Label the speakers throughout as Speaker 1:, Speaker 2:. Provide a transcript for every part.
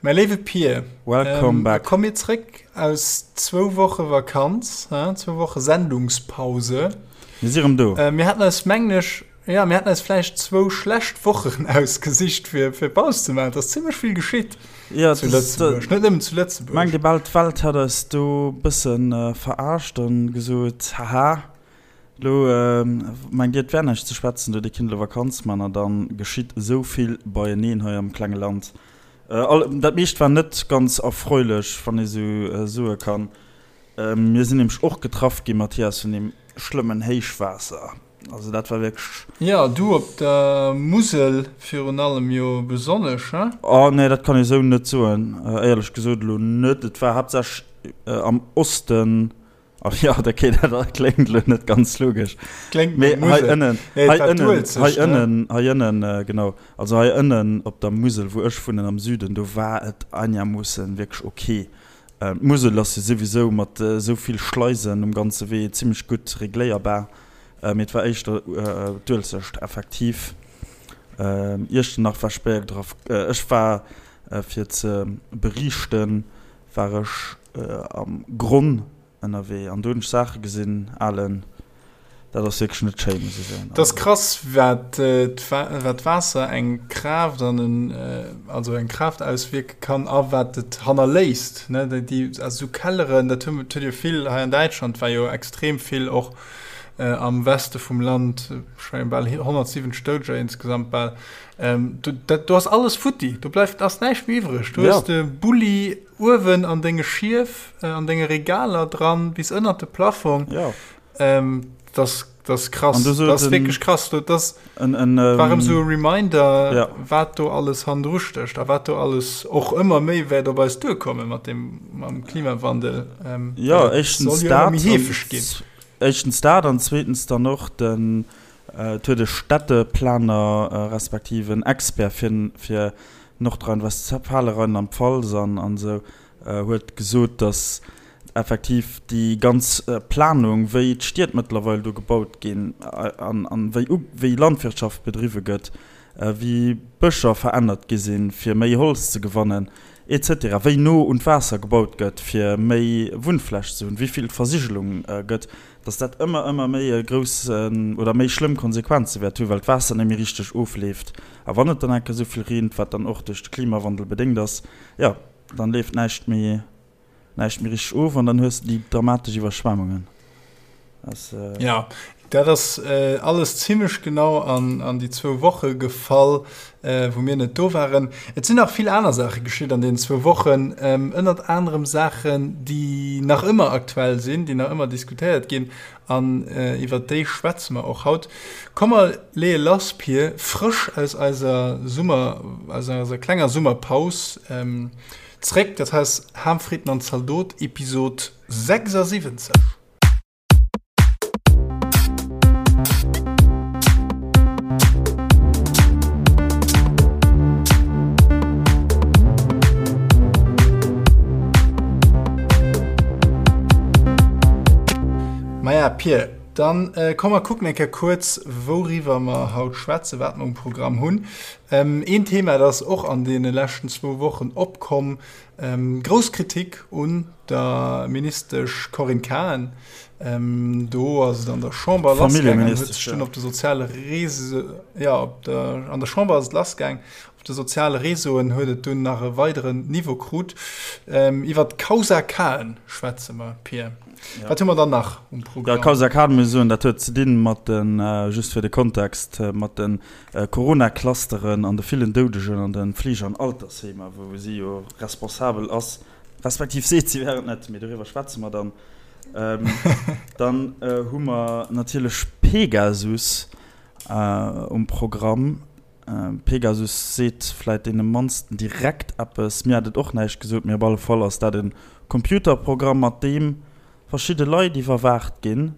Speaker 1: Mäi léiwe Pir,
Speaker 2: Welcome back.
Speaker 1: Komm mir zréck aus zwou Woche Vakanz, zwou Woche Sendungspause.
Speaker 2: Mir si rëm do.
Speaker 1: Mir haten eis, mengen ech, jo, mir haten eis vläicht zwou schlecht Wochen ausgesicht, fir fir Paus ze maachen. Et ass zimmlech vill geschitt
Speaker 2: Ja,
Speaker 1: zu Lëtzebuerg, net nëmmen zu Lëtzebuerg.
Speaker 2: Mengt ee bal, d'Welt hätt eis do e bësse verarscht an gesot, Haha, Lo mengt dir et wär näischt ze schwätzen, do dir kinnt elo Vakanz man a dann geschitt esou vill beieneen hei am klenge Land. Dat meescht war net ganz erfreulech, wann ee sou soe kann. Mir sinn nämlech och getraff gi, Mathias, vun deem schlëmmen Héichwaasser. Also dat war wierklech.
Speaker 1: Jo, du op der Musel virun allem jo besonnesch, he?
Speaker 2: Oh nee, dat kann ee sou net soen, éierlech gesot elo net. Et war haaptsächlech am Osten. Ach jo, okay, dat kléngt elo net ganz logesch.
Speaker 1: Kléngt no
Speaker 2: Mee hei
Speaker 1: Musel.
Speaker 2: ënnen,
Speaker 1: Nee, et
Speaker 2: hei
Speaker 1: war
Speaker 2: ënnen,
Speaker 1: d'Uelzecht,
Speaker 2: hei
Speaker 1: ne?
Speaker 2: ënnen, hei ënnen, genau, also hei ënnen op der Musel, wou ech wunnen, am Süden, do war et einigermoossen wierklech ok. D'Musel ass jo souwisou mat esou vill Schleisen um ganze Wee zimmlech gutt regléierbar, mee et war éischter d'Uelzecht effektiv. Iechternach war spéier getraff. Ech war, fir ze beriichten, war ech am Gronn ënnerwee an do hunn ech Saache gesinn, Alen, dat ass wierklech net schéin, muss ech soen.
Speaker 1: Dat ass krass, wat d'Waasser eng Kraaft an en, also eng Kraaft auswierke kann a wat et hannerléisst, ne? Déi, also esou Kelleren, dat hu huet jo vill hei an Däitschland war jo extrem vill och am Weste vum Land, ech mengen bal 170 Doudeger insgesamt bal, do, dat, do ass alles futti, do bleift, ass näischt méi iwwreg. Do hues de Bulli uewen an denge Schief, an denge Regaler dran, bis ënnert de Plafong.
Speaker 2: Ja.
Speaker 1: Dat ass, dat ass krass.
Speaker 2: An du
Speaker 1: Dat ass
Speaker 2: en,
Speaker 1: wierklech krass. Dat ass,
Speaker 2: en, en,
Speaker 1: war erëm esou e Reminder,
Speaker 2: ja.
Speaker 1: wat do alles hannendru stécht a wat do alles och ëmmer méi wäert op eis duerkomme mat dem, mam Klimawandel.
Speaker 2: Jo,
Speaker 1: Well et
Speaker 2: éischtens
Speaker 1: soll jo ëmmer
Speaker 2: dat
Speaker 1: méi
Speaker 2: an
Speaker 1: heefeg ginn.
Speaker 2: éischtens dat an zweetens dann och den, Et huet e Städteplaner respektiv en Expert fir fir Nordrhein-Westfalen, Rheinland-Pfalz an an esou huet gesot, datt effektiv déi ganz Planung, wéi d'Stied mëttlerweil do gebaut ginn an an wéi wéi Landwirtschaft bedriwwe gëtt, wéi Bëscher verännert gi sinn, fir méi Holz ze gewannen, et cetera, wéi no un d'Waasser gebaut gëtt, fir méi Wunnfläch ze hunn, wéi vill d'Versigelung gëtt, dass dat ëmmer, ëmmer méi e grouss oder méi schlëmm Konsequenze wäert hunn, well d'Waasser net méi richteg ofleeft. A wann et dann eng Kéier esou vill reent, wat dann och duerch de Klimawandel bedéngt ass, jo, dann leeft näischt méi, näischt méi richteg of an dann hues de déi dramatesch Iwwerschwemmungen.
Speaker 1: Ass. Jo, dat ass alles zimlech genau an déi zwou Woche gefall, wou mir net do waren. Et sinn nach vill aner Saache geschitt an deenen zwou Wochen, ënnert anerem Saachen, déi nach ëmmer aktuell sinn, déi nach ëmmer diskutéiert ginn an iwwert déi schwätze mer och haut. Komm mer leeë lass, Pir, frësch aus eiser Summer, aus eiser klenger Summerpaus zréck. Dat hei ass Ham, Fritten an Zaldot, Episod 76. Maja, Pir, dann äh, komm mer kucken eng Kéier kuerz, wouriwwer mer haut schwätzen, wat mer um Programm hunn. Ähm, een Thema, dat ass och an deene leschten zwou Wochen opkomm, ähm, grouss Kritik un der Ministesch Corinne Cahen. Do ass et an der Chamber lassgaangen, huet sech dunn op de soziale Reseauen, jo, op der, an der Chamber ass et lassgaang, op de soziale Reseauen huet et dunn nach e weideren Niveau krut. Iwwer d'Causa Cahen schwätze mer, Pir. Wat hu mer dann nach um
Speaker 2: Programm? Jo, Causa Cahen, muss ech soen, dat huet ze dinn mat den, just fir de Kontext, mat de Corona-Clusteren an de villen Doudegen an de Fleege an Altersheemer, wou si jo responsabel ass. Respektiv seet si wär et net, mee doriwwer schwätze mer dann. Dann hu mer natierlech Pegasus um Programm. Pegasus seet vläit deene mannsten direkt eppes. Mir hat et och näischt gesot, mee op alle Fall ass dat e Computerprogramm, mat deem verschidde Leit iwwerwaacht ginn.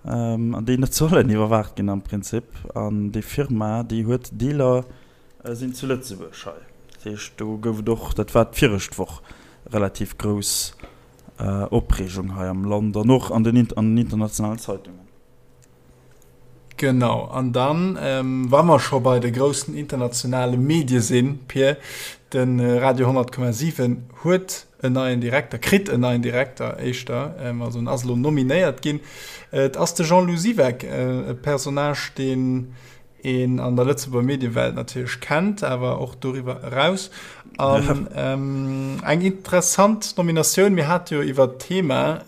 Speaker 2: An déi net sollen iwwerwaacht ginn am Prinzip. An déi Firma, déi huet Dealer sinn zu Lëtzebuerg hei. Dat heescht, do gouf et och, dat war d'viregt Woch, relativ grouss Opreegung hei am Land an och an den internationalen Zeitungen.
Speaker 1: Genau, an dann, wa mer scho bei de groussen internationale Medie sinn, Pir, de Radio 100,7 huet en neien Direkter, kritt en neien Direkter éischter, also en ass elo nominéiert ginn. Et ass de Jean-Lou Siweck, e Personnage, deen een an der Lëtzebuerger Mediewelt natierlech kennt, awer och doriwwer eraus. An eng interessant Nominatioun. Mir hate jo iwwert d'Thema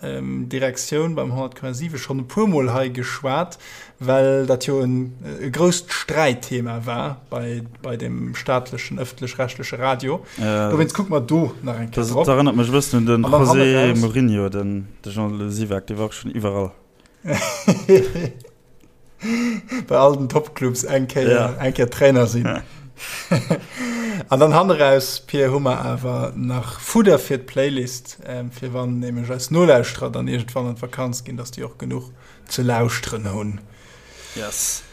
Speaker 1: Direktioun beim 100,7 schonn e puermol hei geschwat, well dat jo e grousst Sträitthema war bei, bei dem staatlechen ëffentlech-rechtleche Radio. Dowéinst kucke mer do nach eng Kéier
Speaker 2: drop. Dat erënnert mech e bëssen un de José Mourinho, den Jean-Lou Siweck, dee war och schonn iwwerall.
Speaker 1: Bei all den Topclubs eng Kéier, ja. eng Kéier Trainer sinn. Ja. An dann hanneraus, Pir, hu mer awer nach Fudder fir d'Playlist, ähm, fir wann nämlech eis Nolauschterer dann iergendwann an d'Vakanz ginn, dass déi och genuch ze lauschteren hunn.
Speaker 2: Yes.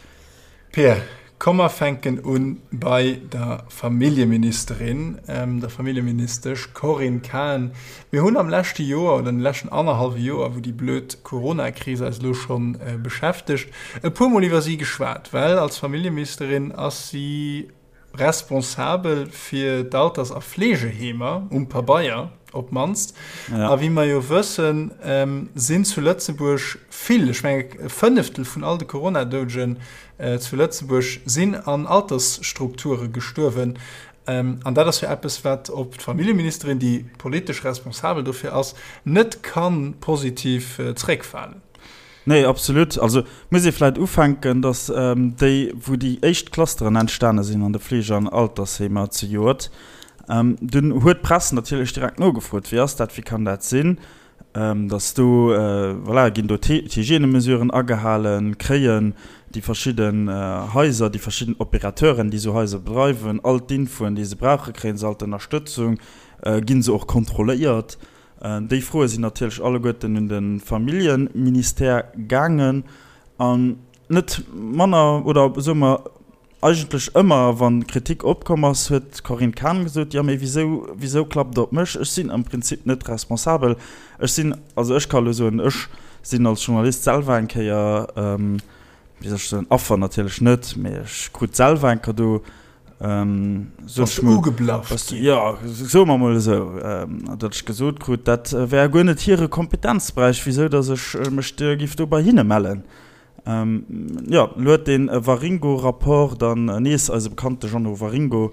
Speaker 1: Pir, komm mer fänken un bei der Familljeministerin, der Familljeministesch Corinne Cahen. Mir hunn am leschte Joer oder an de leschten annerhallwe Joer, wou déi blöd Coronakris eis elo scho beschäftegt, e puermol iwwer si geschwat, well als Familljeministerin ass si responsabel fir d'Alters a Fleegeheemer, um Pabeier op d'mannst. A wéi mer jo wëssen, sinn zu Lëtzebuerg vill, ech mengen e Fënneftel vun all de Corona-Doudegen zu Lëtzebuerg sinn an Altersstrukture gestuerwen. An dat ass jo eppes, wat op d'Familljeministerin, déi politesch responsabel dofir ass, net ka positiv zréckfalen.
Speaker 2: Nee, absolut. Also muss ee vläicht ufänken, datt déi, wou déi éischt Clusteren entstane sinn an de Fleege an Altersheemer zejoert, dunn huet d'Press natierlech direkt nogefrot, Wéi ass dat, wéi kann dat sinn, datt do, voilà, ginn do d'Hygiènemesuren agehalen, kréien déi verschidden Haiser, déi verschidden Opérateuren, déi esou Haiser bedreiwen, all d'Infoen, déi se brauchen, kréie se all d'Ënnerstëtzung, gi se och kontrolléiert? Déi Froe sinn natierlech alleguerten un de Familljeministère gaangen. An net manner, oder soe mer eigentlech ëmmer, wa Kritik opkomm ass, huet d'Corinne Cahen gesot, Jo, mee wisou, wisou klappt Der op mech? Ech sinn am Prinzip net responsabel. Ech sinn, also ech ka elo soen, ech sinn als Journalist selwer eng Kéier, wéi soll ech soen, Affer natierlech net, mee ech krut selwer eng Kéier do
Speaker 1: Bass du ugeblafft
Speaker 2: ginn? Jo, soe mer mol esou, datt ech gesot krut, dat wär guer net hire Kompetenzberäich, wisou datt ech mech giff do bei hinne mellen. Jo, elo huet dee Waringo-Rapport dann nees eise bekannte Jeannot Waringo,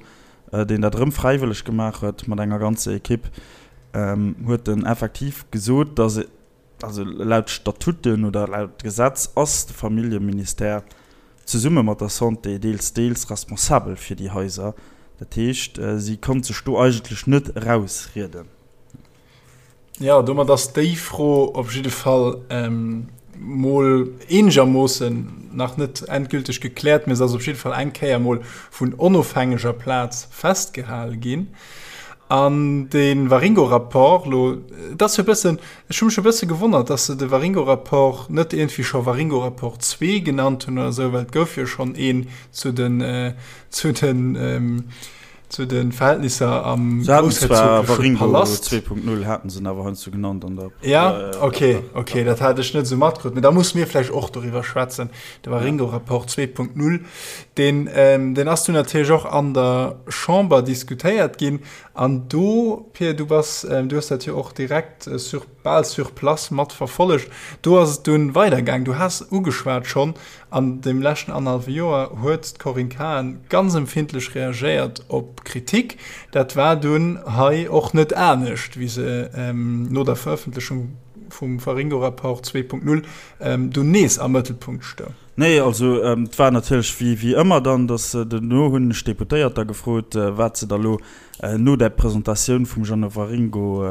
Speaker 2: deen dat erëm fräiwëlleg gemaach huet mat enger ganzer Ekipp, huet en effektiv gesot, datt Also laut Statuten oder laut Gesetz ass de Familljeministère zesumme mat der Santé deels, deels responsabel fir déi Haiser. Dat heescht, si konnt sech do eigentlech net erausrieden.
Speaker 1: Jo, domat ass déi Fro op jidde Fall mol eenegermoossen nach net endgülteg gekläert, mä se ass op jidde Fall eng Kéier mol vun onofhängeger Plaz festgehale ginn. An de Waringo-Rapport elo, et ass jo e bëssen, ech hu mech e bësse gewonnert, dass se de Waringo-Rapport net iergendwéi scho Waringo-Rapport 2 genannt hunn oder esou, well et gouf jo schonn een zu den, zu den, zu de Verhältnisser am
Speaker 2: Se haten zwar groussherzogleche Waringo Palast. 2.0 haten se en awer heiansdo genannt an der.
Speaker 1: Ja, okay, okay, dat hat ech net esou matkritt. Mee da musse mir vläicht och doriwwer schwätzen, de Waringo-Rapport 2.0. Deen, deen ass dunn natierlech och an der Chamber diskutéiert ginn. An do, Pir, du bass, du hues dat jo och direkt sur, bal sur place mat verfollegt, do ass et dunn weidergaang. Du has ugeschwat schonn, an deem leschten annerhallwe Joer huet d'Corinne Cahen ganz empfindlech reagéiert op Kritik. Dat war dunn hei och net anescht, wéi se no der Verëffentlechung vum Waringo-Rapport 2.0 dunn nees am Mëttelpunkt stoung.
Speaker 2: Nee, also et war natierlech wéi wéi ëmmer dann, datt duerno hunn ech d'Deputéiert da gefrot, wat se da lo no där Presentatioun vum Jeannot Waringo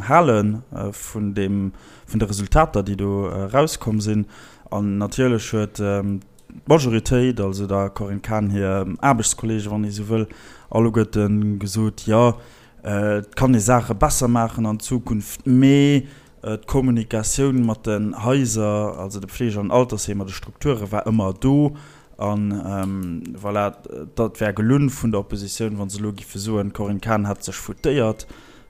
Speaker 2: hale vun deem, vun de Resultater, déi do erauskomm sinn. An natierlech huet d'Majoritéit, also der Corinne Cahen hir Aarbechtskollegen, wann ee sou wëll, alleguerte gesot, jo, et kann ee Saache besser maachen an Zukunft, mee D'Kommunikatioun mat den Haiser, also de Pflege an Altersheemer, de Strukture war ëmmer do. A voilà, dat wär gelunn vun der Oppositioun, wa se elo giffe soen, d'Corinne Cahen hätt sech foutéiert.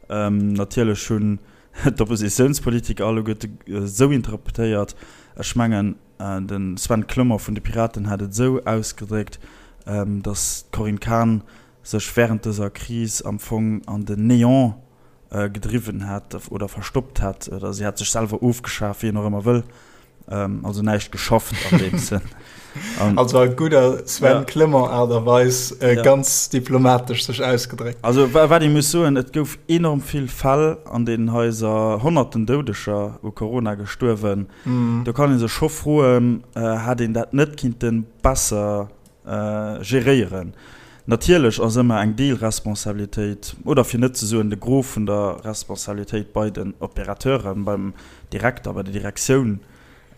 Speaker 2: Natierlech hunn d'Oppositiounspolitiker alleguerte esou interpretéiert. Ech mengen. De Sven Clement vun de Piraten hat et esou ausgedréckt, datt d'Corinne Cahen sech wärend dëser Kris am Fong an den Néant gedriwwen hätt oder verstoppt hätt, oder si hätt sech selwer ofgeschaf, wéi een och ëmmer wëll, also näischt geschafft an deem Sënn.
Speaker 1: Also a gudder Sven Clement Aart a Weis ganz diplomatesch sech ausgedréckt.
Speaker 2: Also wat ee muss soen, et gouf enorm vill Fäll an deenen Haiser, honnerten Doudeger u Corona gestuerwen. Do kann ee sech scho froen, hätt een dat net kinnte besser geréieren. Natierlech ass ëmmer eng Deelresponsabilitéit, oder fir net ze soen de Gros vun der Responsabilitéit bei den Opérateuren, beim Direkter, bei der Direktioun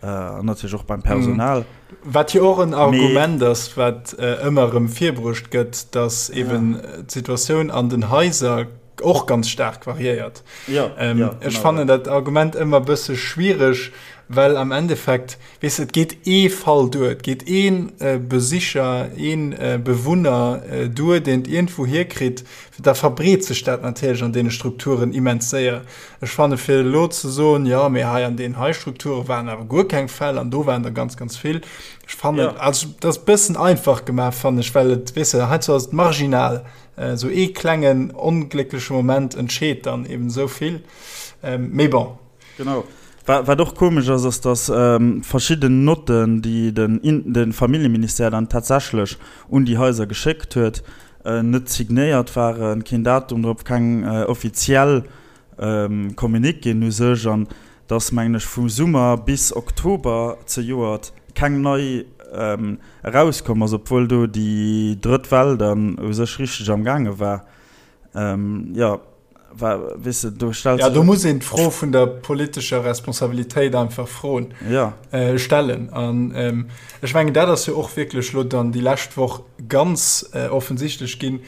Speaker 2: an natierlech och beim Personal.
Speaker 1: Wat jo och en Argument ass, wat ëmmer erëm virbruecht gëtt, datt eeben d'Situatioun an den Haiser och ganz staark variéiert. Ech fannen dat Argument ëmmer e bësse schwiereg, well am Endeffekt, Weess de, et geet ee Fall duer, et geet ee Besicher, ee Bewunner duer, deen et iergendwou hierkritt, da verbreet sech dat natierlech an deene Strukturen immens séier. Ech fanne fir elo ze soen, jo, mee hei an deenen hei Strukture waren awer guer keng Fäll an do waren der ganz, ganz vill, ech fannen, also dat ass e bëssen einfach gemaach, fannen ech, well et, weess de, heiansdo ass et marginal, esou ee klengen ongléckleche Moment entscheet dann eben esou vill. Mee bon.
Speaker 2: Genau. Wat och komesch ass, ass datt verschidden Notten, déi de Familljeministère dann tatsächlech un déi Haiser geschéckt huet, net signéiert waren, keen Datum drop, keng offiziell Communiquéen u sech, an datt, mengen ech, vu Summer bis Oktober zejoert keng nei erauskomm ass, obwuel do déi drëtt Well dann u sech richteg am gaange war. Jo.
Speaker 1: Weess de, do stellt Ja, do muss een d'Fro vun der politescher Responsabilitéit einfach froen,
Speaker 2: ja.
Speaker 1: äh, stellen. An ähm, ech mengen, dat ass jo och wierklech lo dann déi lescht Woch ganz äh, offensichtlech ginn.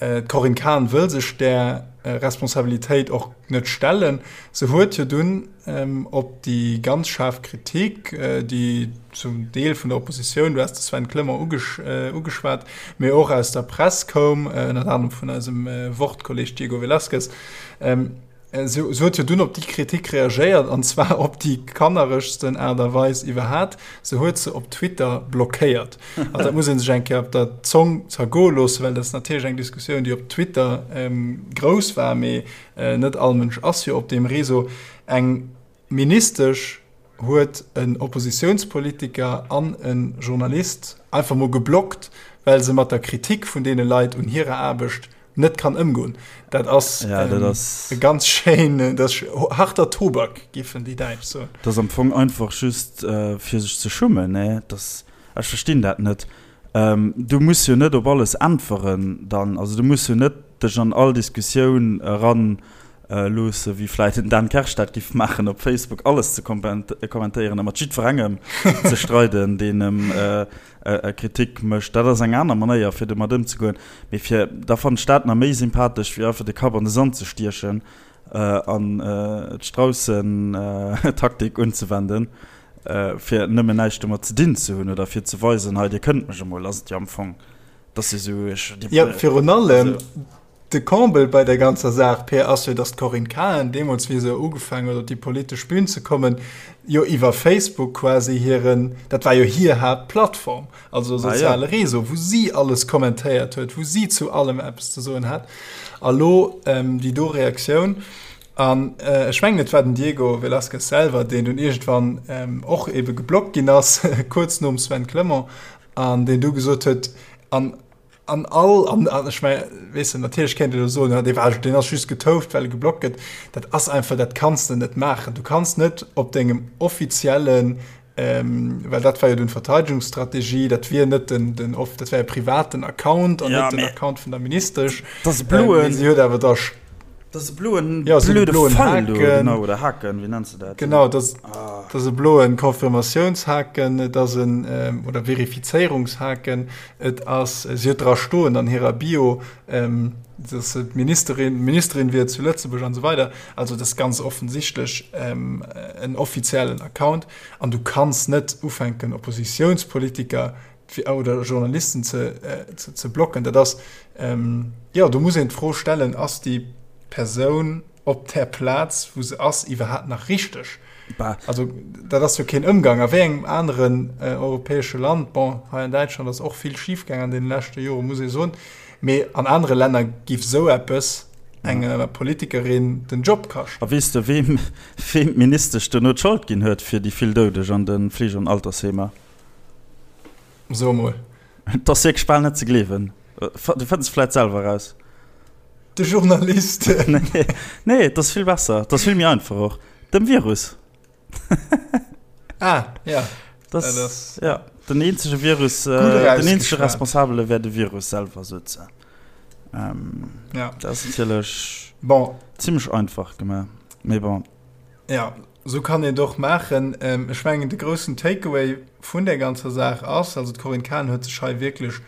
Speaker 1: Äh, D'Corinne Cahen wëll sech där äh, Responsabilitéit och net stellen. Se huet jo dunn ähm, op déi ganz schaarf Kritik, äh, déi zum Deel vun der Oppositioun, du has de Sven Clement ugesch, äh, ugeschwat, mee och aus der Press koum, äh, ënnert anerem vun eisem äh, Wort-Kolleg Diego Velázquez, ähm, äh, se, se huet jo dunn op déi Kritik reagéiert, an zwar op déi kanneregsten Aart a Weis iwwerhat, se huet se op Twitter blockéiert. Also dat muss ee sech eng Kéier op der Zong zergoe loossen, well dat ass natierlech eng Diskussioun, déi op Twitter ähm, grouss war, mee Net all Mënsch ass jo op deem Réseau. Eng Ministesch huet en Oppositiounspolitiker an e Journalist einfach mol geblockt, well se mat der Kritik vun deene Leit un hirer Aarbecht net kann ëmgoen. Dat ass e ganz schéin, dat ass harter Tobak, géifen déi Däitsch soen.
Speaker 2: Dat ass am Fong einfach just fir sech ze schummen, ne? Ech verstinn dat net. Du muss jo net op alles äntweren dann. Also du muss jo net dech an all Diskussioun eran loosse wéi vläit den Dan Kersch dat giff maachen op Facebook, alles ze kommentéieren a mat jiddwerengem ze streiden, deen em Kritik mécht. Dat ass eng aner Manéier fir domat ëmzegoen. Mee fir, da fannen ech dat nach méi sympathesch wéi einfach de Kapp an de Sand ze stiechen an d'Straussen-Taktik unzewenden. Fir nëmmen näischt domat ze dinn ze hunn oder fir ze weisen, hei dir kënnt mech emol, ass et jo am Fong, dass se esou,
Speaker 1: ech, dir, Jo, virun allem de Comble bei der ganzer Saach, Peer, ass jo, dass d'Corinne Cahen deemools, wéi se ugefaangen huet op déi politesch Bühn ze kommen, jo iwwer Facebook quasi hiren, dat war jo hir Haaptplattform, also soziale Réseau, wou si alles kommentéiert huet, wou si zu allem eppes ze soen hat. A lo déi do Reaktioun. An ech mengen, et war den Diego Velázquez selwer, deen dunn iergendwann och ebe geblockt ginn ass, kuerz nom Sven Clement, an deen du gesot huet, an an all, an ech mengen, weess de, natierlech kéint een elo soen, jo, dee war, deen ass just getouft, well e geblockt gëtt. Dat ass einfach, dat kanns de net maachen. Du kanns net op dengem offiziellen Ähm, well dat war jo dunn d'Verteidigungsstrategie, dat wier net den, den off, dat wär e privaten Account an ja, net den Account vun der Ministesch.
Speaker 2: Das e bloen.
Speaker 1: Ähm, si huet awer da
Speaker 2: Das e bloen,
Speaker 1: ja, so blöde bloen
Speaker 2: Fall do, genau, oder Haken, wéi nennst du dat?
Speaker 1: Genau, das, ah. das e bloen Konfirmatiounshaken, et ass en, ähm, oder Verifizéierungshaken, et ass, si huet dra stoen an hirer Bio, ähm, dass se d'Ministerin, Ministerin wier zu Lëtzebuerg an esou weider. Also dat ass ganz offensichtlech ähm, en offiziellen Account an du kanns net ufänken Oppositiounspolitiker oder Journalisten ze, äh, ze, ze blocken. Dat ass ähm, ja, do muss een d'Fro stellen, ass déi Persoun. op där Plaz, wou se ass, iwwerhaapt nach richteg? Bah. Also dat ass jo keen Ëmgang. A wéi engem aneren europäesche Land, bon, hei an Däitschland ass och vill schifgaang an deene leschte Joren, muss ee soen, mee an anere Länner giff esou eppes enger Politikerin den Job kaschten.
Speaker 2: A weess de, weem weem d'Ministesch duerno d'Schold ginn huet fir déi vill Doudeg an de Fleege an Altersheemer?
Speaker 1: So emol.
Speaker 2: Et ass wierklech bal net ze gleewen. Du fënns et vläit selwer eraus.
Speaker 1: De Journalisten.
Speaker 2: Nee, nee, et ass vill besser. Et ass vill méi einfach och. Dem Virus.
Speaker 1: Ah, ja.
Speaker 2: Das, dat ass, ja, den eenzege Virus, äh, den eenzege Responsabele wär de Virus selwer, sot se. Ähm, ja. Dat ass natierlech
Speaker 1: bon.
Speaker 2: zimmlech einfach gemaach. Mee bon.
Speaker 1: Ja, sou kann een et och maachen. Ech mengen, de groussen Takeaway vun där ganzer Saach ass, also d'Corinne Cahen huet sech hei wierklech,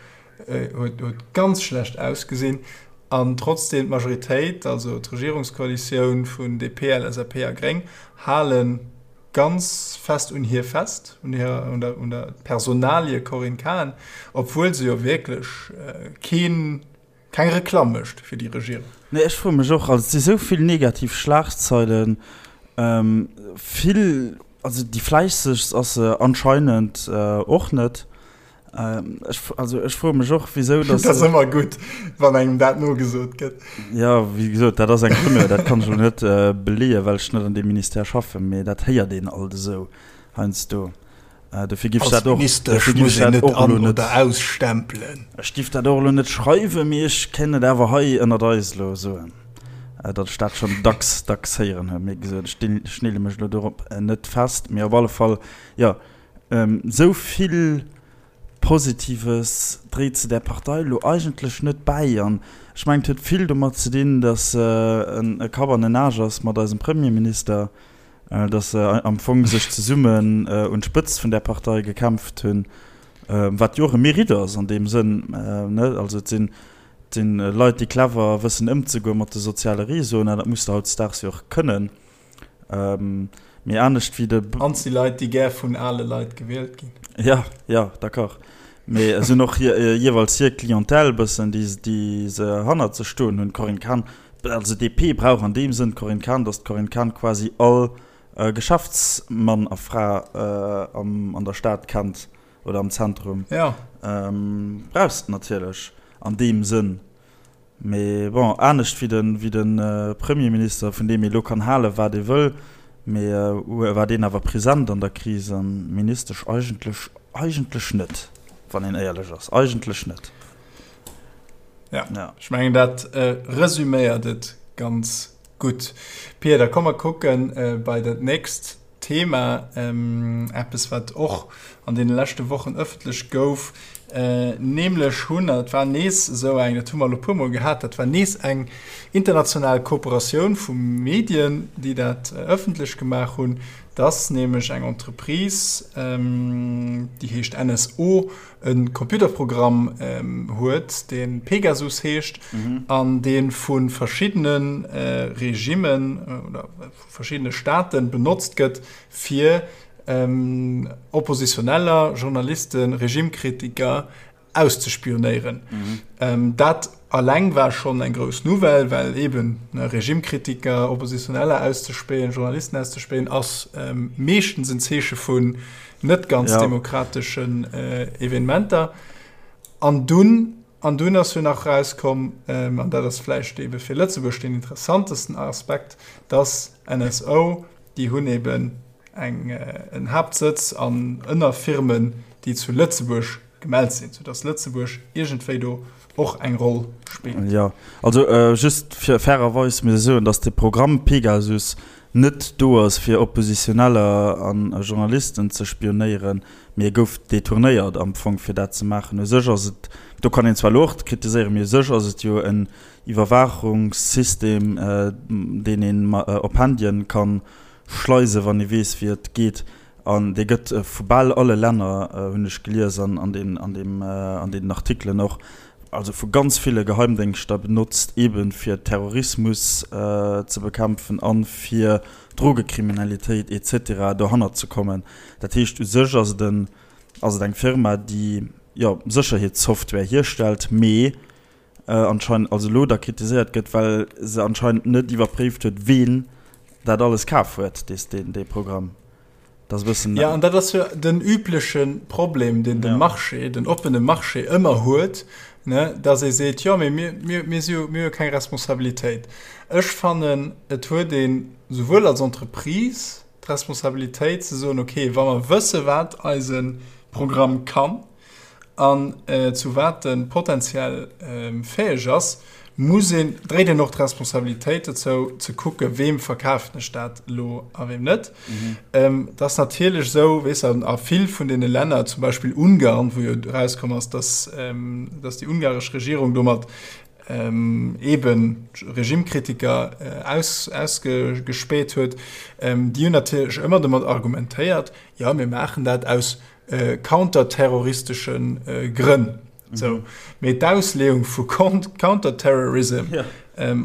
Speaker 1: huet, huet ganz schlecht ausgesinn an trotzdem d'Majoritéit, also d'Regierungskoalitioun vun DP, LSAP a Gréng, hale ganz fest un hir fest, un hirer, un der, un der Personalie Corinne Cahen, obwuel se jo wierklech keen, Keng Reklamm mécht fir déi Regierung.
Speaker 2: Nee, ech froe mech och, also et si sou vill negativ Schlagzeilen, vill, also déi fläissegst ass se anscheinend och net. Ech, also ech froe mech och, wisou
Speaker 1: datt. Dat ass ëmmer gutt, wann engem dat nogesot gëtt.
Speaker 2: Jo, wéi gesot, dat ass eng Rumeur, dat kann ech elo net beleeën, well ech net an deem Ministère schaffen, mee dat héiert een alt esou heiansdo. Dofir giff ech dat och,
Speaker 1: dofir giff ech dat och elo net ausstempelen.
Speaker 2: Ech giff dat och elo net schreiwen, mee ech kéint et awer hei ënnert eis elo soen, datt ech dat schonn dacks, dacks héieren hunn. Mee gesot, ech dinn, ech neele mech elo dorop net fest. Mee op alle Fall, jo, esou vill Positives dréit se där Partei elo eigentlech net bäi. An ech mengen, et huet vill domat ze dinn, datt se e Kapp an en Aasch ass mat eisem Premierminister. dass se am Fong sech zesummen un d'Spëtzt vun där Partei gekämpft hunn, wat jo och e Mérite ass an deem Sënn, ne? Also et sinn, et sinn Leit, déi clever wëssen ëmzegoen mat de soziale Réseauen, an dat muss de hautdesdaags jo och kënnen, mee anescht wéi de.
Speaker 1: An et si Leit, déi gär vun ale Leit gewielt ginn.
Speaker 2: Jo, jo, d'accord. Mee se hunn och jeeweils hir Clientèle bëssen, déi, déi se hannert sech stoen hunn. D'Corinne Cahen Also DP brauch an deem Sënn d'Corinne Cahen, datt d'Corinne Cahen quasi all Geschäftsmann a Fra an der Stad kennt oder am Zentrum.
Speaker 1: Jo.
Speaker 2: Brauchs de natierlech an deem Sënn. Mee bon, anescht wéi de wéi de Premierminister, vun deem ee lo kann halen, wat ee wëll, mee war deen awer present an der Kris an d'Ministesch eigentlech eigentlech net, wann een éierlech ass, eigentlech net.
Speaker 1: Ja, ja. Ech mengen dat äh, resüméiert et ganz gutt. Pia, da komm mer kucken äh, bei dat nächst Thema, ähm, eppes wat och an den leschte Wochen ëffentlech gouf, äh, nämlech hunn, dat war nees esou eng, dat hu mer elo puermol gehat, dat war nees eng international Kooperatioun vu Medien, déi dat äh, ëffentlech gemaach hunn, dass nämlech eng Entreprise, ähm, déi heescht NSO, e Computerprogramm huet, dee Pegasus heescht an dee vu verschiddene Regimmen oder vu verschiddene Staate benotzt gëtt, fir Oppositioneller, Journalisten, Regimekritiker auszespionéieren. Dat alleng war schonn eng grouss Nouvelle, well eeben Regimekritiker, Oppositioneller auszespähen, Journalisten auszespähen, ass meeschtens en Zeeche vun net ganz ja. demokrateschen äh, Evenementer. An dunn an dunn ass jo nach rauskomm ähm, an dat ass vläicht ebe fir Lëtzebuerg den interessantesten Aspekt, dass NSO déi hunn eben eng äh, en Haaptsëtz an Ënnerfirmen, déi zu Lëtzebuerg gemellt sinn, soudass Lëtzebuerg iergendwéi do och eng Roll spillt.
Speaker 2: Jo, also just fir fairerweis muss ech soen, datt de Programm Pegasus net do ass fir Oppositioneller a Journalisten ze spionéieren, mee e gouf detournéiert am Fong fir dat ze maachen. U sech ass et, do kann een zwar elo och kritiséieren, mee u sech ass et jo en Iwwerwaachungssystem, deen een op Handyen ka schleisen, wann ee weess wéi et geet. An dee gëtt vu bal alle Länner, hunn ech gelies an an deem, an deem, an deenen Artikelen och, also vu ganz ville Geheimdéngschter benotzt, eebe fir Terrorismus ze bekämpfen a fir Drogekriminalitéit et cetera dohannert ze kommen. Dat heescht, u sech ass et en, ass et eng Firma, déi, jo, Sécherheetssoftware hierstellt, mee. anscheinend, also elo da kritiséiert gëtt, well se anscheinend net iwwerpréift huet, ween dat alles kaf huet, dee, dee Programm.
Speaker 1: Dat ass e bëssen. Ja, an dat ass jo den übleche Problem, deen de Marché, den oppene Marché ëmmer huet, ne, dass ee seet, jo, mee mir, mir, mir si jo, mir hu jo keng Responsabilitéit. Ech fannen, et huet een souwuel als Entreprise d'Responsabilitéit ze soen, okay, wa mer wësse wat eise Programm kann, An zu wat e potenziell fäeg ass, muss een, dréit een och d'Responsabilitéit dozou, ze kucken, weem verkafen ech dat elo a weem net. Et ass natierlech esou, weess de, a vill vun deene Länner, zum Beispill Ungarn, wou jo erauskomm ass, dass, dass déi ungaresch Regierung domat eeben Regimekritiker aus, ausgespäht huet, déi hunn natierlech ëmmer domat argumentéiert, jo, mir maachen dat aus counterterroristesche Grënn. Sou. Mee d'Ausleeung vu Counterterrorism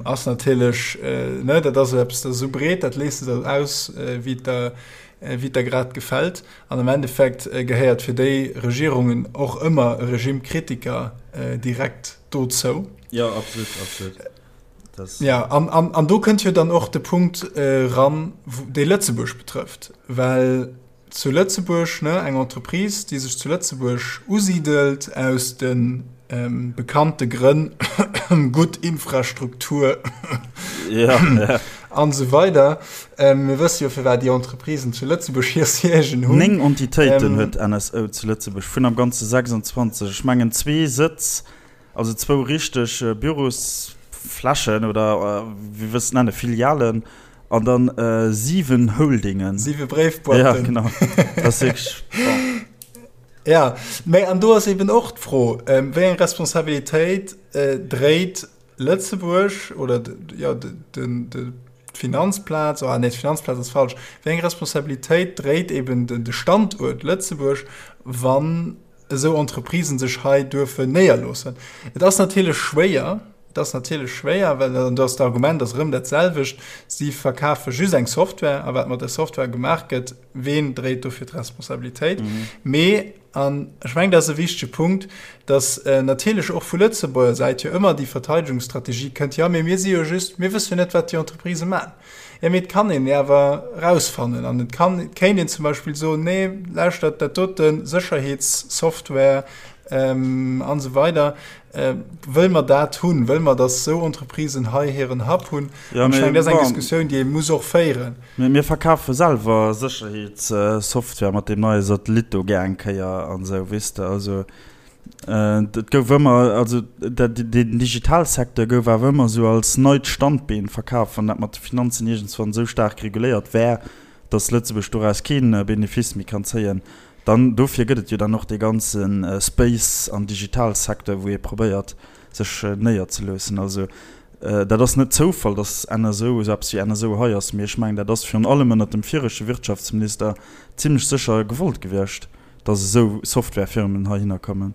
Speaker 1: ass natierlech, ne, dat ass eppes, dat ass esou breet, dat lees de der aus, wéi et der, wéi et der grad gefält. An am Endeffekt gehéiert fir déi Regierungen och ëmmer e Regimekritiker direkt dozou.
Speaker 2: Jo, absolut, absolut.
Speaker 1: Ja, an, an, an do kënnt jo dann och de Punkt eran, dee Lëtzebuerg betrëfft, well Zu Lëtzebuerg, ne, eng Entreprise, déi sech zu Lëtzebuerg usidelt aus de bekannte Grënn, gutt Infrastruktur an esou weider. Mir wësse jo, firwat déi Entreprisen zu Lëtzebuerg hir Siègen
Speaker 2: hunn. 9 Entitéiten huet NSO zu Lëtzebuerg, vun am Ganze 26. Ech mengen zwee Sëtz Also zwou richteg Bürosflächen oder wéi wëlls de nennen, Filialen an dann 7 Holdingen.
Speaker 1: 7 Bréifboîten.
Speaker 2: Ja, genau. Dat ass wierklech,
Speaker 1: bon. Ja, mä an do ass eben och d'Fro, wéi eng Responsabilitéit dréit Lëtzebuerg oder jo den d'Finanzplaz, oh nee, d'Finanzplaz ass falsch, wéi eng Responsabilitéit dréit eben de Standuert Lëtzebuerg, wann esou Entreprisen sech hei duerfen néierloossen. Et ass natierlech schwéier, et ass natierlech schwéier, well, an do ass d'Argument ass erëm dat selwecht, si verkafe just eng Software a wat mat där Software gemaach gëtt, ween dréit dofir d'Responsabilitéit? Mee, an ech mengen, dat ass e wichtege Punkt, datt natierlech och vu Lëtzebuerger Säit jo ëmmer déi Verteidegungsstrategie kënnt, jo, mee mir si jo just, mir wësse jo net, wat déi Entreprisë maachen. Jo, mee et kann een awer erausfannen an et kann, et kéint een zum Beispill soen, nee, lauschtert, dat dote Sécherheetssoftware an esou weider, wëlle mer dat hunn? Wëlle mer, datt esou Entreprisen hei hiren Hub hunn? An ech mengen, dat ass eng Diskussioun, déi ee muss och féieren.
Speaker 2: Mee mir verkafe selwer Sécherheetssoftware mat deem neie Satellit do gär eng Kéier an esou, weess de. Also Et gouf ëmmer, also den Digitalsecteur gouf awer ëmmer esou als neit Standbeen verkaf, wann dat mat de Finanzen iergendswann esou staark reguléiert wär, datt Lëtzebuerg doraus kee Benefice méi kann zéien. Dann, dofir gëtt et jo dann och dee ganze Space an Digitalsecteur, wou ee probéiert sech néierzeloossen. Also dat ass net Zoufall, datt NSO, esou eppes wéi NSO hei ass, mee ech mengen, dat ass virun allem ënnert dem viregte Wirtschaftsminister zimlech sécher gewollt gewiescht. dass esou Softwarefirmen heihinner kommen.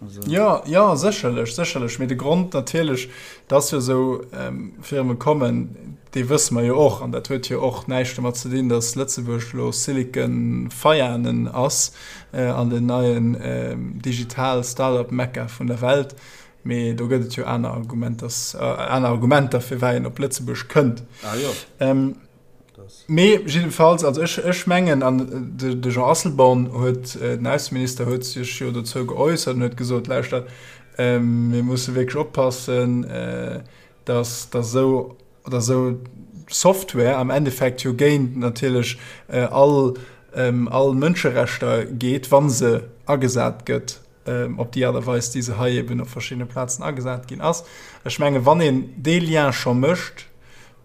Speaker 1: Also. Ja, ja, sécherlech, sécherlech. Mee de Grond natierlech, dass jo esou ähm, Firme kommen, dee wësse mer jo och. An dat huet jo och näischt domat ze dinn, dass Lëtzebuerg elo Silicon Veianen ass äh, an den neien äh, digital Startup-Mekka vun der Welt. Mee do gëtt et jo aner Argumenters, äh, aner Argumenter, firwat een op Lëtzebuerg kënnt.
Speaker 2: Ah, jo.
Speaker 1: Ähm, Mee jiddefalls, also ech, ech mengen, an de, de Jean Asselborn huet, den Ausseminister huet sech jo dozou geäussert an huet gesot, lauschtert, mir musse wierklech oppassen, datt, datt esou, datt esou Software am Endeffekt jo géint natierlech all, all Mënscherechter geet, wa se agesat gëtt op déi Aart a Weis, déi se hei eben op verschiddene Plazen agesat ginn ass. Ech menge wann een dee Lien scho mécht,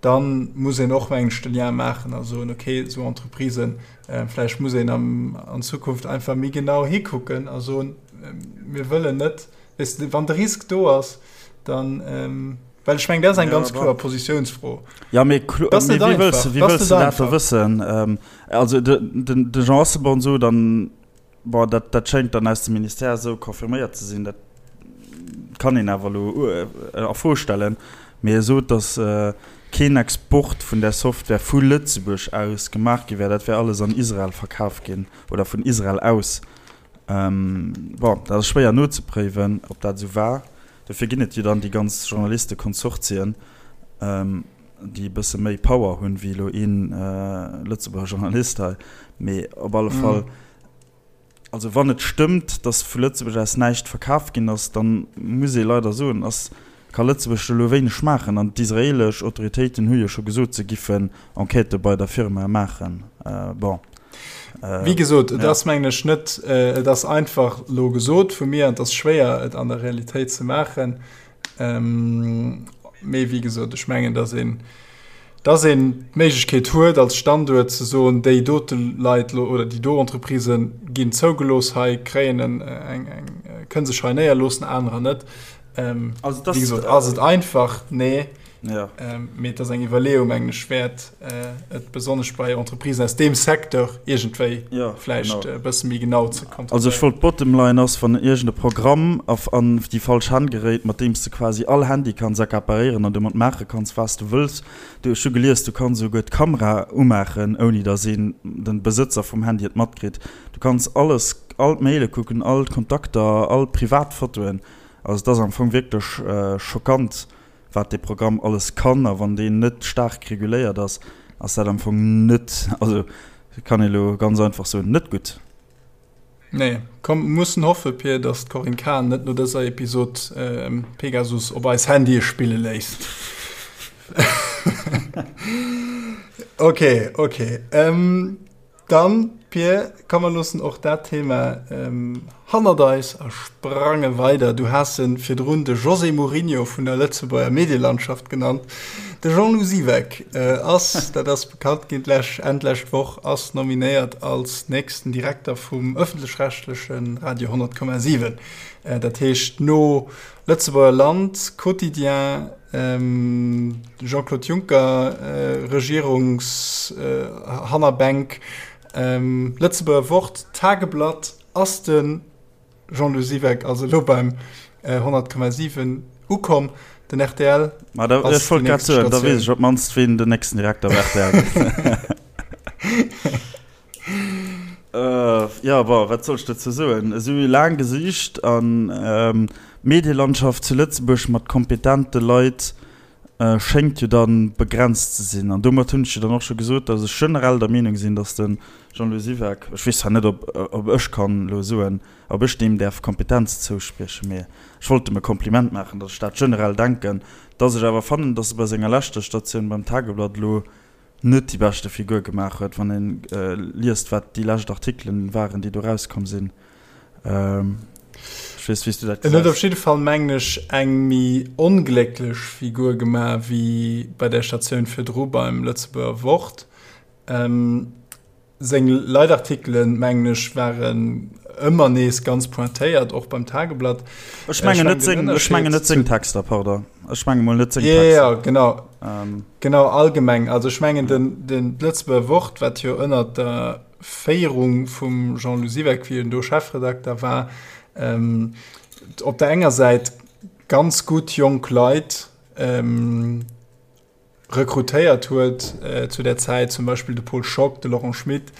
Speaker 1: da muss een och, mengen ech, de Lien maachen a soen, okay, esou Entreprisen, vläicht muss een an Zukunft einfach méi genau hikucken a soen, mir wëllen net, weess de, wann de Risk do ass, dann, well ech mengen, dat ass eng ganz kloer Positiounsfro.
Speaker 2: Jo, mee wéi wëlls de dat da wëssen? Also de Jean Asselborn sot an Bon, dat, dat schéngt dann aus dem Ministère esou confirméiert ze sinn. Dat kann een awer elo a Fro stellen. Mee e sot, datt keen Export vun där Software vu Lëtzebuerg aus gemaach gi wär. Dat wär alles an Israel verkaf ginn oder vun Israel aus. Bon, dat ass schwéier nozepréiwen, ob dat esou war. Dofir ginn et jo dann déi ganz Journalistekonsortien, déi e bësse méi Power hunn, wéi elo een Lëtzebuerger Journalist hei. Mee op alle Fall, also wann et stëmmt, datt vu Lëtzebuerg aus näischt verkaf ginn ass, da muss ee leider soen, ass, ka Lëtzebuerg do elo wéineg maachen. An d'israeelesch Autoritéiten hu jo scho gesot, se giffen Enquêtë bei der Firma maachen. Bon.
Speaker 1: Wéi gesot, et ass mengen ech net, et ass einfach elo gesot vu mir an et ass schwéier et an der Realitéit ze maachen. Mee wéi gesot, ech mengen, datt een, datt een d'Méiglechkeet huet als Standuert ze soen, déi dote Leit elo oder déi do Entreprisë ginn zougelooss hei, kréien en eng, eng, kënne sech hei néierloossen, anerer net. Wéi gesot, ass et einfach? Nee.
Speaker 2: Ja.
Speaker 1: Ähm, mee et ass eng Iwwerleeung, mengen ech, wäert, äh, et besonnesch bei Entreprisen aus deem Secteur iergendwéi
Speaker 2: ja,
Speaker 1: vläicht e bësse méi genau ze
Speaker 2: kontrolléieren. Also ech wollt, d'Bottom line ass, wann iergend e Programm af an déi falsch Hänn geréit, mat deem s de quasi all Handy kanns accaparéieren an domat maache kanns, wat s de wëlls. Du, ech hu gelies, du kanns esouguer d'Kamera umaachen, ouni datt een, den Besëtzer vum Handy et matkritt. Du kanns alles, all d'Maile kucken, all d'Kontakter, all d'Privatfotoen. Also et ass am Fong wierklech schockant, wat dee Programm alles kann, a wann deen net staark reguléiert ass, ass dat am Fong net, also kann ee elo ganz einfach soen, net gutt.
Speaker 1: Nee, komm, mussen hoffe, Pir, datt d'Corinne Cahen net no dëser Episod Pegasus op eis Handye spille léisst. Ok, ok. Dann, Pir, komm mer loossen och dat Thema hannert eis a sprange weider. Du has e virdrun de José Mourinho vun der Lëtzebuerger Medielandschaft genannt. De Jean-Lou Siweck ass, dat ass bekannt ginn d'lech, Enn d'lescht Woch, ass nominéiert als nächsten Direkter vum ëffentlech-rechtleche Radio 100,7. Dat heescht no Lëtzebuerger Land, Quotidien, Jean-Claude Juncker, Regierungshannerbänk, Lëtzebuerger Wort, Tageblatt, ass de Jean-Lou Siweck also elo beim 100,7 ukomm. Den rtl
Speaker 2: ass déi nächst Statioun. Da weess ech op d'mannst, wien den nächsten Direkter bei rtl gëtt. Jo, bon, wat soll ech dozou soen? Esou laang gesicht an d'Medielandschaft zu Lëtzebuerg mat kompetente Leit schéngt jo da begrenzt ze sinn. An domat hunn ech jo dann och scho gesot, datt ech generell der Meenung sinn, datt de Jean-Louis Siweck, ech weess zwar net, ob ob ech kann elo soen, ob ech deem däerf Kompetenz zouspriechen, mee ech wollt em e Kompliment maachen, datt ech dat generell denken, datt ech awer fannen, datt e bei senger leschter Statioun beim Tageblatt elo net déi beschte Figur gemaach huet, wann een liest wat déi lescht Artikelen waren, déi do rauskomm sinn. Ech weess wéi s du dat
Speaker 1: En huet op gesäis. jidde Fall, mengen ech, eng méi onglécklech Figur gemaach wéi bei där Statioun virdru beim Lëtzebuerger Wort. Seng Leitartikelen, mengen ech, waren ëmmer nees ganz pointéiert, och beim Tageblatt.
Speaker 2: Ech mengen net seng, ech mengen net seng Texter, pardon. Ech menge mol net
Speaker 1: seng Texter. Ja, ja, genau. Ähm. Genau, allgemeng. Also ech mengen, den, den d'Lëtzebuerger Wort, wat jo ënnert der Féierung vum Jean-Lou Siweck, wéi en do Chefredakter war, ähm, op der enger Säit ganz gutt jonk Leit, ähm, rekrutéiert huet zu där Zäit, zum Beispill de Paul Schock, de Laurent Schmit,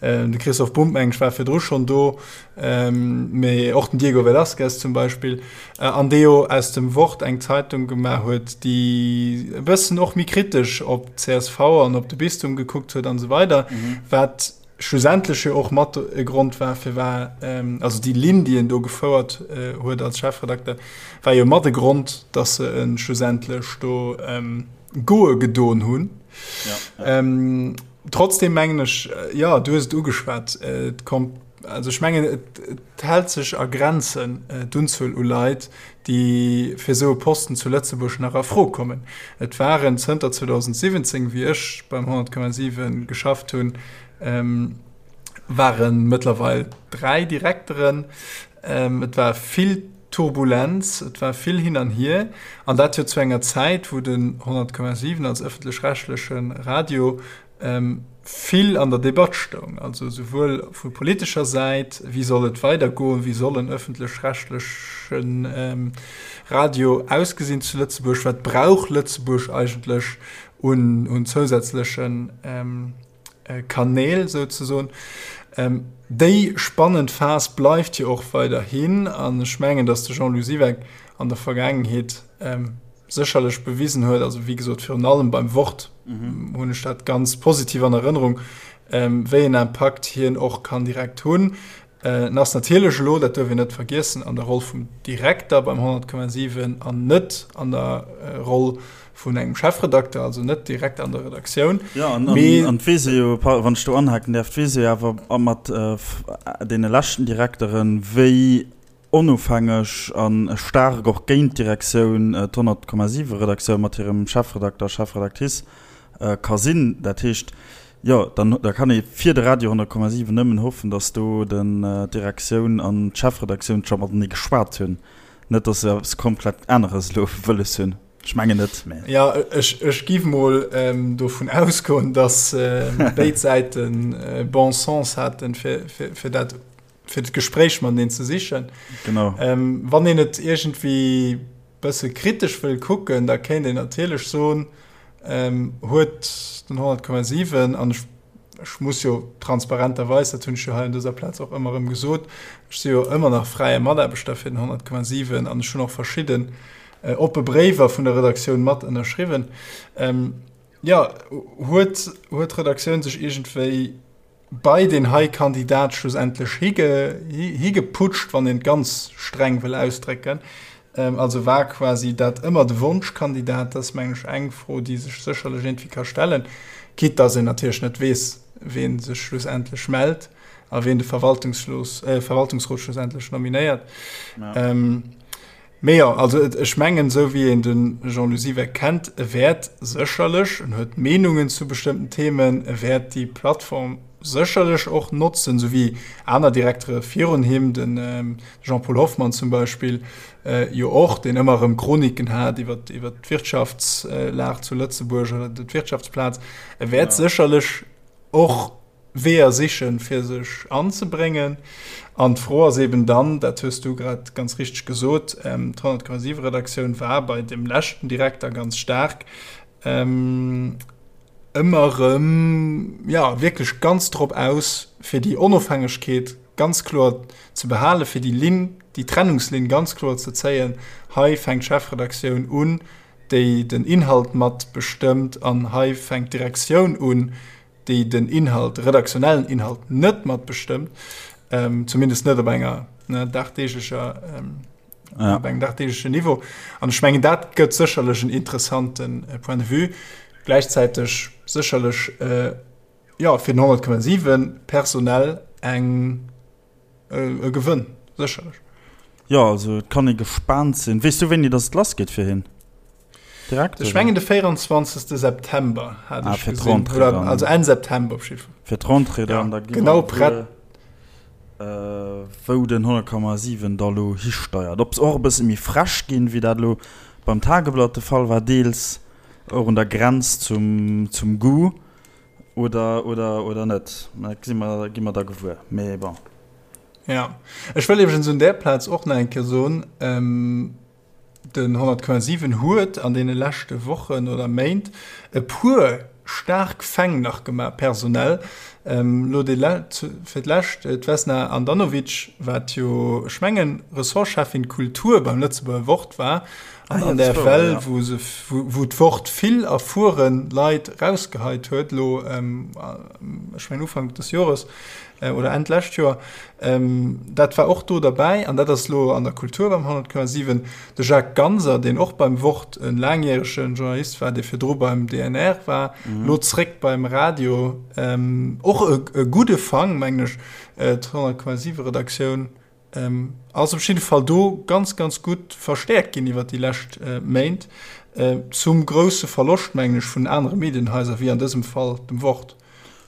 Speaker 1: de Christoph Bumb, meng ech, war virdru schonn do, mee och den Diego Velázquez zum Beispill, an dee jo aus dem Wort eng Zeitung gemaach huet, déi e bëssen och méi kritesch op d'CSV an op de Bistum gekuckt huet an esou weider, wat schlussendlech jo och mat e Grond war, firwat, also déi Linn, déi en do gefouert huet als Chefredakter, war jo mat e Grond, datt se e schlussendlech do goe gedoen hunn. Ja. Trotzdem mengen ech, jo, du hues et ugeschwat, et kommt, also ech mengen, et hält sech a Grenzen, d'Unzuel u Leit, déi fir esou e Posten zu Lëtzebuerg nach a Fro kommen. Et waren zënter 2017, wéi ech beim 100,7 geschafft hunn, ware mëttlerweil 3 Direkteren. Et war vill Turbulenz, et war vill hin an hier, an dat jo zu enger Zäit, wou den 100,7 als ëffentlech-rechtleche Radio vill an der Debatt stoung, also souwuel vu politescher Säit, wéi soll et weidergoen, wéi soll en ëffentlech-rechtleche Radio ausgesinn zu Lëtzebuerg, wat brauch Lëtzebuerg eigentlech un zousätzleche Kanäl souzesoen. Déi spannend Phas bleift jo och weiderhin an ech mengen, datt de Jean-Lou Siweck. an der Vergaangenheet sécherlech bewisen huet, also wéi gesot virun allem beim Wort hunn ech dat ganz positiv an Erënnerung, wéi en Impakt hien och kann direkt hunn. En ass natierlech elo, dat duerf een net vergiessen, an der Roll vum Direkter beim 100,7 an net an der Roll vun engem Chefredakter, also net direkt an der Redaktioun.
Speaker 2: Jo, an et weess ee jo, wann ech do anhaken däerf, et weess ee jo awer mat deene leschten Direkteren, wéi onofhängeg a staark och géint d'Direktioun d'100,7 Redaktioun mat hirem Chefredakter, Chefredactrice ka sinn. Dat heescht, jo, dann da kann ee fir de Radio 100,7 nëmmen hoffen, datt do den d'Direktioun an d'Chefredaktioun scho matenee geschwat hunn, net datt se eppes komplett aneres elo wëlles hunn. Ech mengen net,
Speaker 1: mä. Jo, ech, ech giff mol dovun ausgoen, datt béid Säiten bon sens haten, fir, fir, fir dat fir d'Gespréich mateneen ze sichen.
Speaker 2: Genau.
Speaker 1: Ähm, wann een et iergendwéi bësse kritesch wëll kucken, da kéint een natierlech soen, ähm, huet den 100,7, an ech, ech muss jo transparenterweis, dat hunn ech jo hei un dëser Plaz och ëmmer erëm gesot, ech si jo ëmmer nach fräie Mataarbechter fir den 100,7 an ech hunn och verschidden äh, oppe Bréiwer vun der Redaktioun mat ënnerschriwwen. Ähm, jo, huet, huet d'Redaktioun sech iergendwéi bei deen hei Kandidat schlussendlech higeputscht, wann een et ganz streng wëll ausdrécken. Also war quasi dat ëmmer de Wonschkandidat? Dat ass, mengen ech, eng Fro, déi sech sécherlech iergendwéi ka stellen, quitte dass een natierlech net weess, wee sech schlussendlech mellt a ween de Verwaltungsrot schlussendlech nominéiert. Mee jo, also ech mengen, esou wéi een de Jean-Lou Siweck kennt, e wäert sécherlech, en huet Meenungen zu bestëmmten Themen, e wäert déi Plattform sécherlech och notzen, esou wéi aner Direktere virun him, de Jean-Paul Hoffmann zum Beispill jo och, deen ëmmer erëm Chroniken hat iwwer d'Wirtschaftslag zu Lëtzebuerg oder d'Wirtschaftsplaz. E wäert sécherlech och Weeër sichen, fir sech anzebréngen. An d'Fro ass eben dann, dat hues du grad ganz richteg gesot, d'Honnertkommasiwe Redaktioun war bei dem leschten Direkter ganz staark ëmmer erëm, jo, wierklech ganz drop aus, fir déi Onofhängegkeet ganz kloer ze behalen, fir déi Linn, déi Trennungslinn ganz kloer ze zéien, hei fänkt d'Chefredaktioun un, déi den Inhalt mat bestëmmt, an hei fänkt d'Direktioun un, déi den Inhalt, de redaktionellen Inhalt net mat bestëmmt, ähm, zumindest net op enger ne, dagdeeglecher ähm, ja. op engem dagdeeglechen Niveau. An ech mengen dat gëtt sécherlech en interessanten äh, Point de vue. Gläichzäiteg sécherlech äh, ja, fir den 100,7 personell eng e Gewënn, sécherlech.
Speaker 2: Jo, also et kann ee gespaant sinn. Weess du wéini datt et lass geet fir hien?
Speaker 1: Direkt? Ech mengen de 24. September hat ah, ech gesinn. Oder, also Enn September op
Speaker 2: jidde Fall. Fir d'Rentrée dann,
Speaker 1: ja, da genau prett.
Speaker 2: Äh, wou den 100,7 da lo histeiert. Ob se och e bësse méi frech ginn, wéi dat lo beim Tageblatt de Fall war, deels och un der Grenz zum, zum Goût. Oder, oder, oder net. Dat gesi mer, gi mer da gewuer. Mee bon.
Speaker 1: Ja. Ech wëll iwwregens un där Plaz och nach eng Kéier soen, den 100,7 huet an deene leschte Wochen oder Méint e puer staark Fäng nach gemaach, personell. Elo déi le, fir d'lescht d'Vesna Andanovic, wat jo, ech mengen, Ressortcheffin Kultur beim Lëtzebuerger Wort war, An an där Well, wou se, wou d'Wort vill erfueren Leit rausgeheit huet, elo, ech mengen Ufank des Jores oder Enn d'lescht Joer, dat war och do derbäi. An dat ass elo an der Kultur beim 100,7. De Jacques Ganser, deen och beim Wort e laangjärege Journalist war, dee virdru beim DNR war, elo zréck beim Radio, och e gudde Fang, mengen ech, d'Honnertkommasiwe Redaktioun. Ass op jidde Fall do ganz, ganz gutt verstäerkt ginn iwwert déi lescht Méint, zum grousse Verloscht, mengen ech, vun anere Medienhaiser, wéi an dësem Fall dem Wort.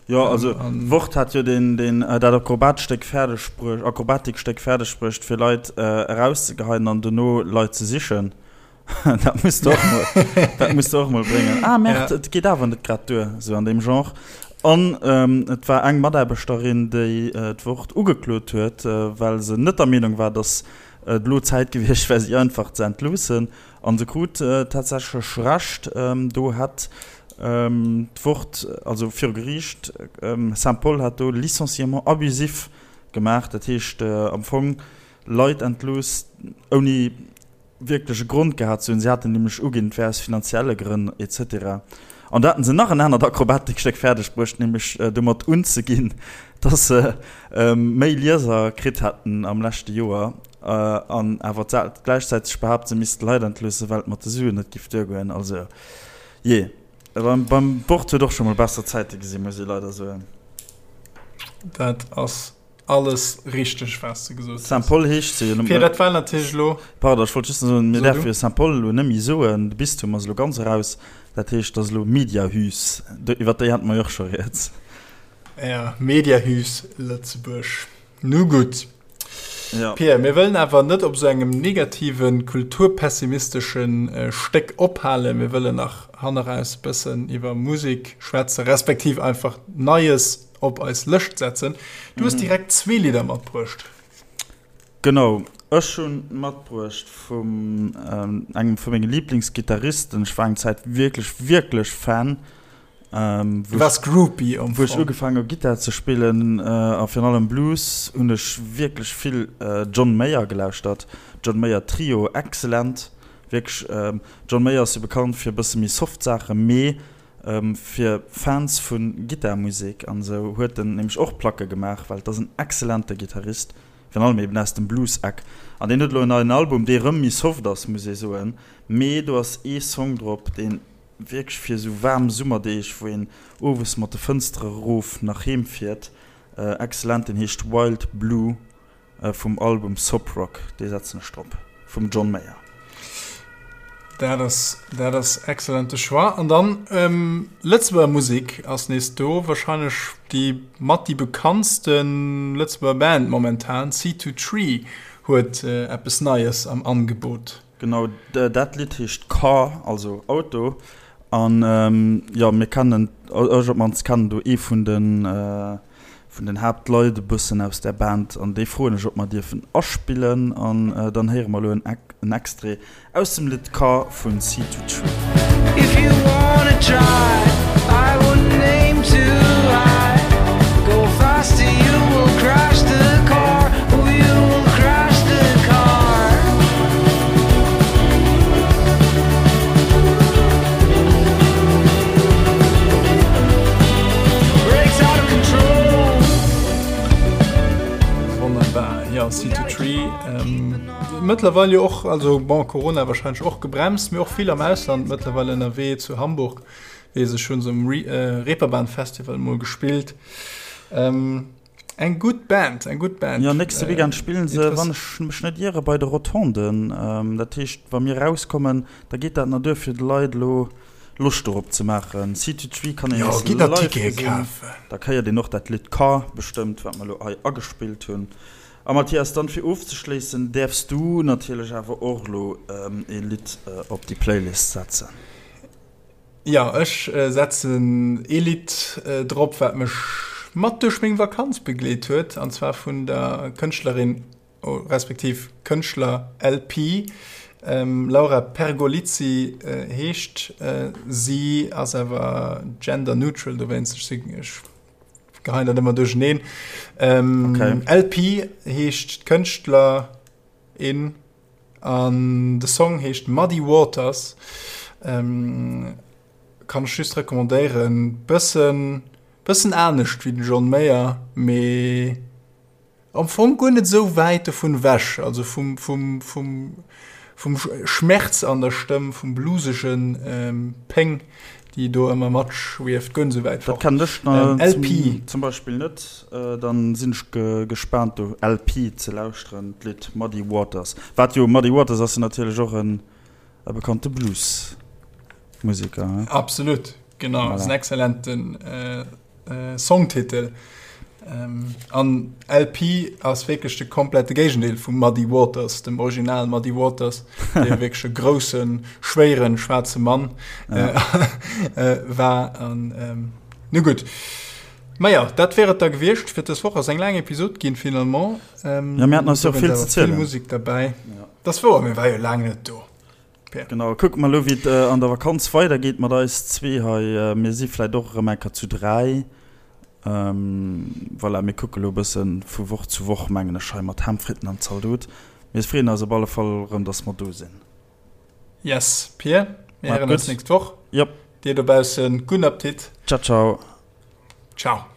Speaker 2: Jo, also d'Wort hat jo deen, deen, dat Akrobatstéck fäerdeg bruecht, Akrobatikstéck fäerdeg bruecht, fir Leit erauszegeheien an dono Leit ze sichen. Dat muss de och mol, dat muss de och mol bréngen. Ah, Merde, ja. Et geet awer net grad duer, sou an deem Genre. An ähm, et war eng Mataarbechterin, déi äh, d'Wort ugeklot huet, äh, well se net der Meenung war, dass et elo Zäit gewiescht wär, si einfach ze entloossen. An se krut äh, tatsächlech Recht. Ähm, do hat ähm, d'Wort, also viru Geriicht, ähm, Saint-Paul hat do Licenciement abusif gemaach, dat heescht äh, am Fong Leit entlooss ouni. wierklech e Grond gehat ze hunn. Si haten nämlech uginn, et wär aus finanzielle Grënn et cetera. An do haten se nach en anert Akrobatikstéck fäerdeg bruecht, nämlech domat unzeginn, dass se méi Lieser kritt hätten am leschte Joer an awer gläichzäiteg behaapt, se misste Leit entloossen, well et mat de Suen net giff duergoen. Also jee, beim Wort huet och scho mol besser Zäite gesinn, muss ee leider soen.
Speaker 1: Dat ass Alles richteg waats de gesot hues.
Speaker 2: Saint-Paul heescht se jo net.
Speaker 1: Fir dat war natierlech elo.
Speaker 2: Pardon, ech wollt just soen, mir däerfe jo Saint-Paul elo net méi soen, de Bistum ass elo ganz eraus, dat heescht, et ass elo Mediahüs, iwwer déi hate mer jo och scho rieds.
Speaker 1: Jo, Mediahüs Lëtzebuerg. Nu gutt. Pierre, mir wëllen awer net op esou engem negativen, kulturpessimisteschen Stéck ophalen. Mir wëllen nach hanneraus e bëssen iwwer Musek schwätzen, respektiv einfach Neies op eis Lëscht setzen. Du hues direkt zwee Lidder matbruecht.
Speaker 2: Genau, ech hunn matbruecht vum engem vu menge Liblingsgittaristen. Ech war eng Zäit wierklech, wierklech Fan.
Speaker 1: Du waars Groupie
Speaker 2: am Fong. Wou ech ugefaangen hu Gittar ze spillen a virun allem Blues, hunn ech wierklech vill John Mayer gelauschtert. John Mayer Trio, excellent, wierklech. John Mayer ass jo bekannt fir e bësse méi soft Saachen, mee Fir Fans vu Gittarmusek an esou huet en nämlech och Placke gemaach, well et ass en excellente Gittarist, virun allem eben aus dem Blues-Eck. An deen huet elo en neien Album, dee rëm méi soft ass, muss ee soen, mee do ass ee Song drop, dee wierklech fir esou waarm Summerdeeg, wou een owes mat de Fënstere erof nach heem fiert, excellent. Deen heescht Wild Blue. Vum Album Soap Rock, dee setzen ech drop, vum John Mayer.
Speaker 1: Dat ass, dat ass excellente Choix. An dann Lëtzebuerger Musek ass nees do, wahrscheinlech déi mat déi bekanntste Lëtzebuerger Band momentan, C2 Tree huet eppes Neies am Angebot.
Speaker 2: Genau, dat Lidd heescht Car, also Auto. An jo, mir kennen, ech op d'mannst kennen do ee vun den, vun den Haaptleit e bëssen aus där Band an déi froen ech, ob mer dierfen aspillen an dann héiere mer elo en Extrait aus dem Lidd Car vun Sea to Tree. If you wanna try, I wouldn't aim too high. Go faster, you will crash the car. Oh, you will crash the car.
Speaker 1: Wonnerbar, jo, Seed to Tree, mëttlerweil jo och, also bon, Corona wahrscheinlech och gebremst, mee och vill am Ausland mëttlerweil ënnerwee, zu Hamburg weess ech, hunn se um Reeperbahn Festival mol gespillt. Eng gutt Band, eng gutt Band.
Speaker 2: Jo, nächste Weekend spillen se, wann ech mech net iere, bei de Rotonden. Dat heescht, wa mir erauskommen, da geet dat nach duer, fir de Leit elo Loscht dorop ze maachen. Seed to Tree kann een
Speaker 1: nees live gesinn.
Speaker 2: Da héiert een och dat Lidd Car bestëmmt, wat mer elo hei agespillt hunn. A Mathias, dann fir ofzeschléissen, däerfs du natierlech awer och elo ee Lidd op déi Playlist setzen.
Speaker 1: Jo, ech setzen ee Lidd drop, wat mech mat duerch meng Vakanz begleet huet, an zwar vun der Kënschtlerin, respektiv Kënschtler LP. Laura Pergolizzi heescht si, ass awer gender neutral, dowéinst, ech geheien dat ëmmer duercheneen. LP heescht d'Kënschtlerin. An de Song heescht Muddy Waters. Kann ech just recommandéieren. Bëssen, bëssen anescht wéi den John Mayer, mee am Fong guer net esou wäit dovun ewech. Also vum, vum, vum, vum Schmerz an der Stëmm, vum bluesegen Péng, déi do ëmmer matschwieft, guer net esou wäit
Speaker 2: fort. Dat kennen ech LP. Zum Beispill net. Dann sinn ech gespaant do LP ze lauschteren, d'Lidd Muddy Waters. Wat jo, Muddy Waters ass jo natierlech och en e bekannte Blues-Museker, he?
Speaker 1: Absolut, genau, ass en excellenten Songtitel. An LP ass wierklech de komplette Géigendeel vum Muddy Waters, dem Original Muddy Waters, dee wierklech e groussen, schwéieren, schwaarze Mann war. An nu gutt. Maja, dat wär et da gewiescht fir dës Woch. Ass eng laang Episod ginn finalement.
Speaker 2: Ja, mir haten eis jo och vill ze zielen.
Speaker 1: Vill Musek derbäi. Dat ass wouer, mir war jo laang net do.
Speaker 2: Pierre. Genau, kucke mer elo wéi et an der Vakanz weidergeet mat eis zwee hei. Mir si vläit och erëm eng Kéier zu 3. Voilà, mir kucke elo e bësse vu Woch zu Woch, mengen ech, hei mat Ham, Fritten an Zaldot. Mir freeën eis op alle Fall erëm, dass mer do sinn.
Speaker 1: Yes, Pir, mir héieren eis nächst Woch.
Speaker 2: Jop.
Speaker 1: Dir dobaussen, gudden Appetit.
Speaker 2: Ciao, ciao.
Speaker 1: Ciao.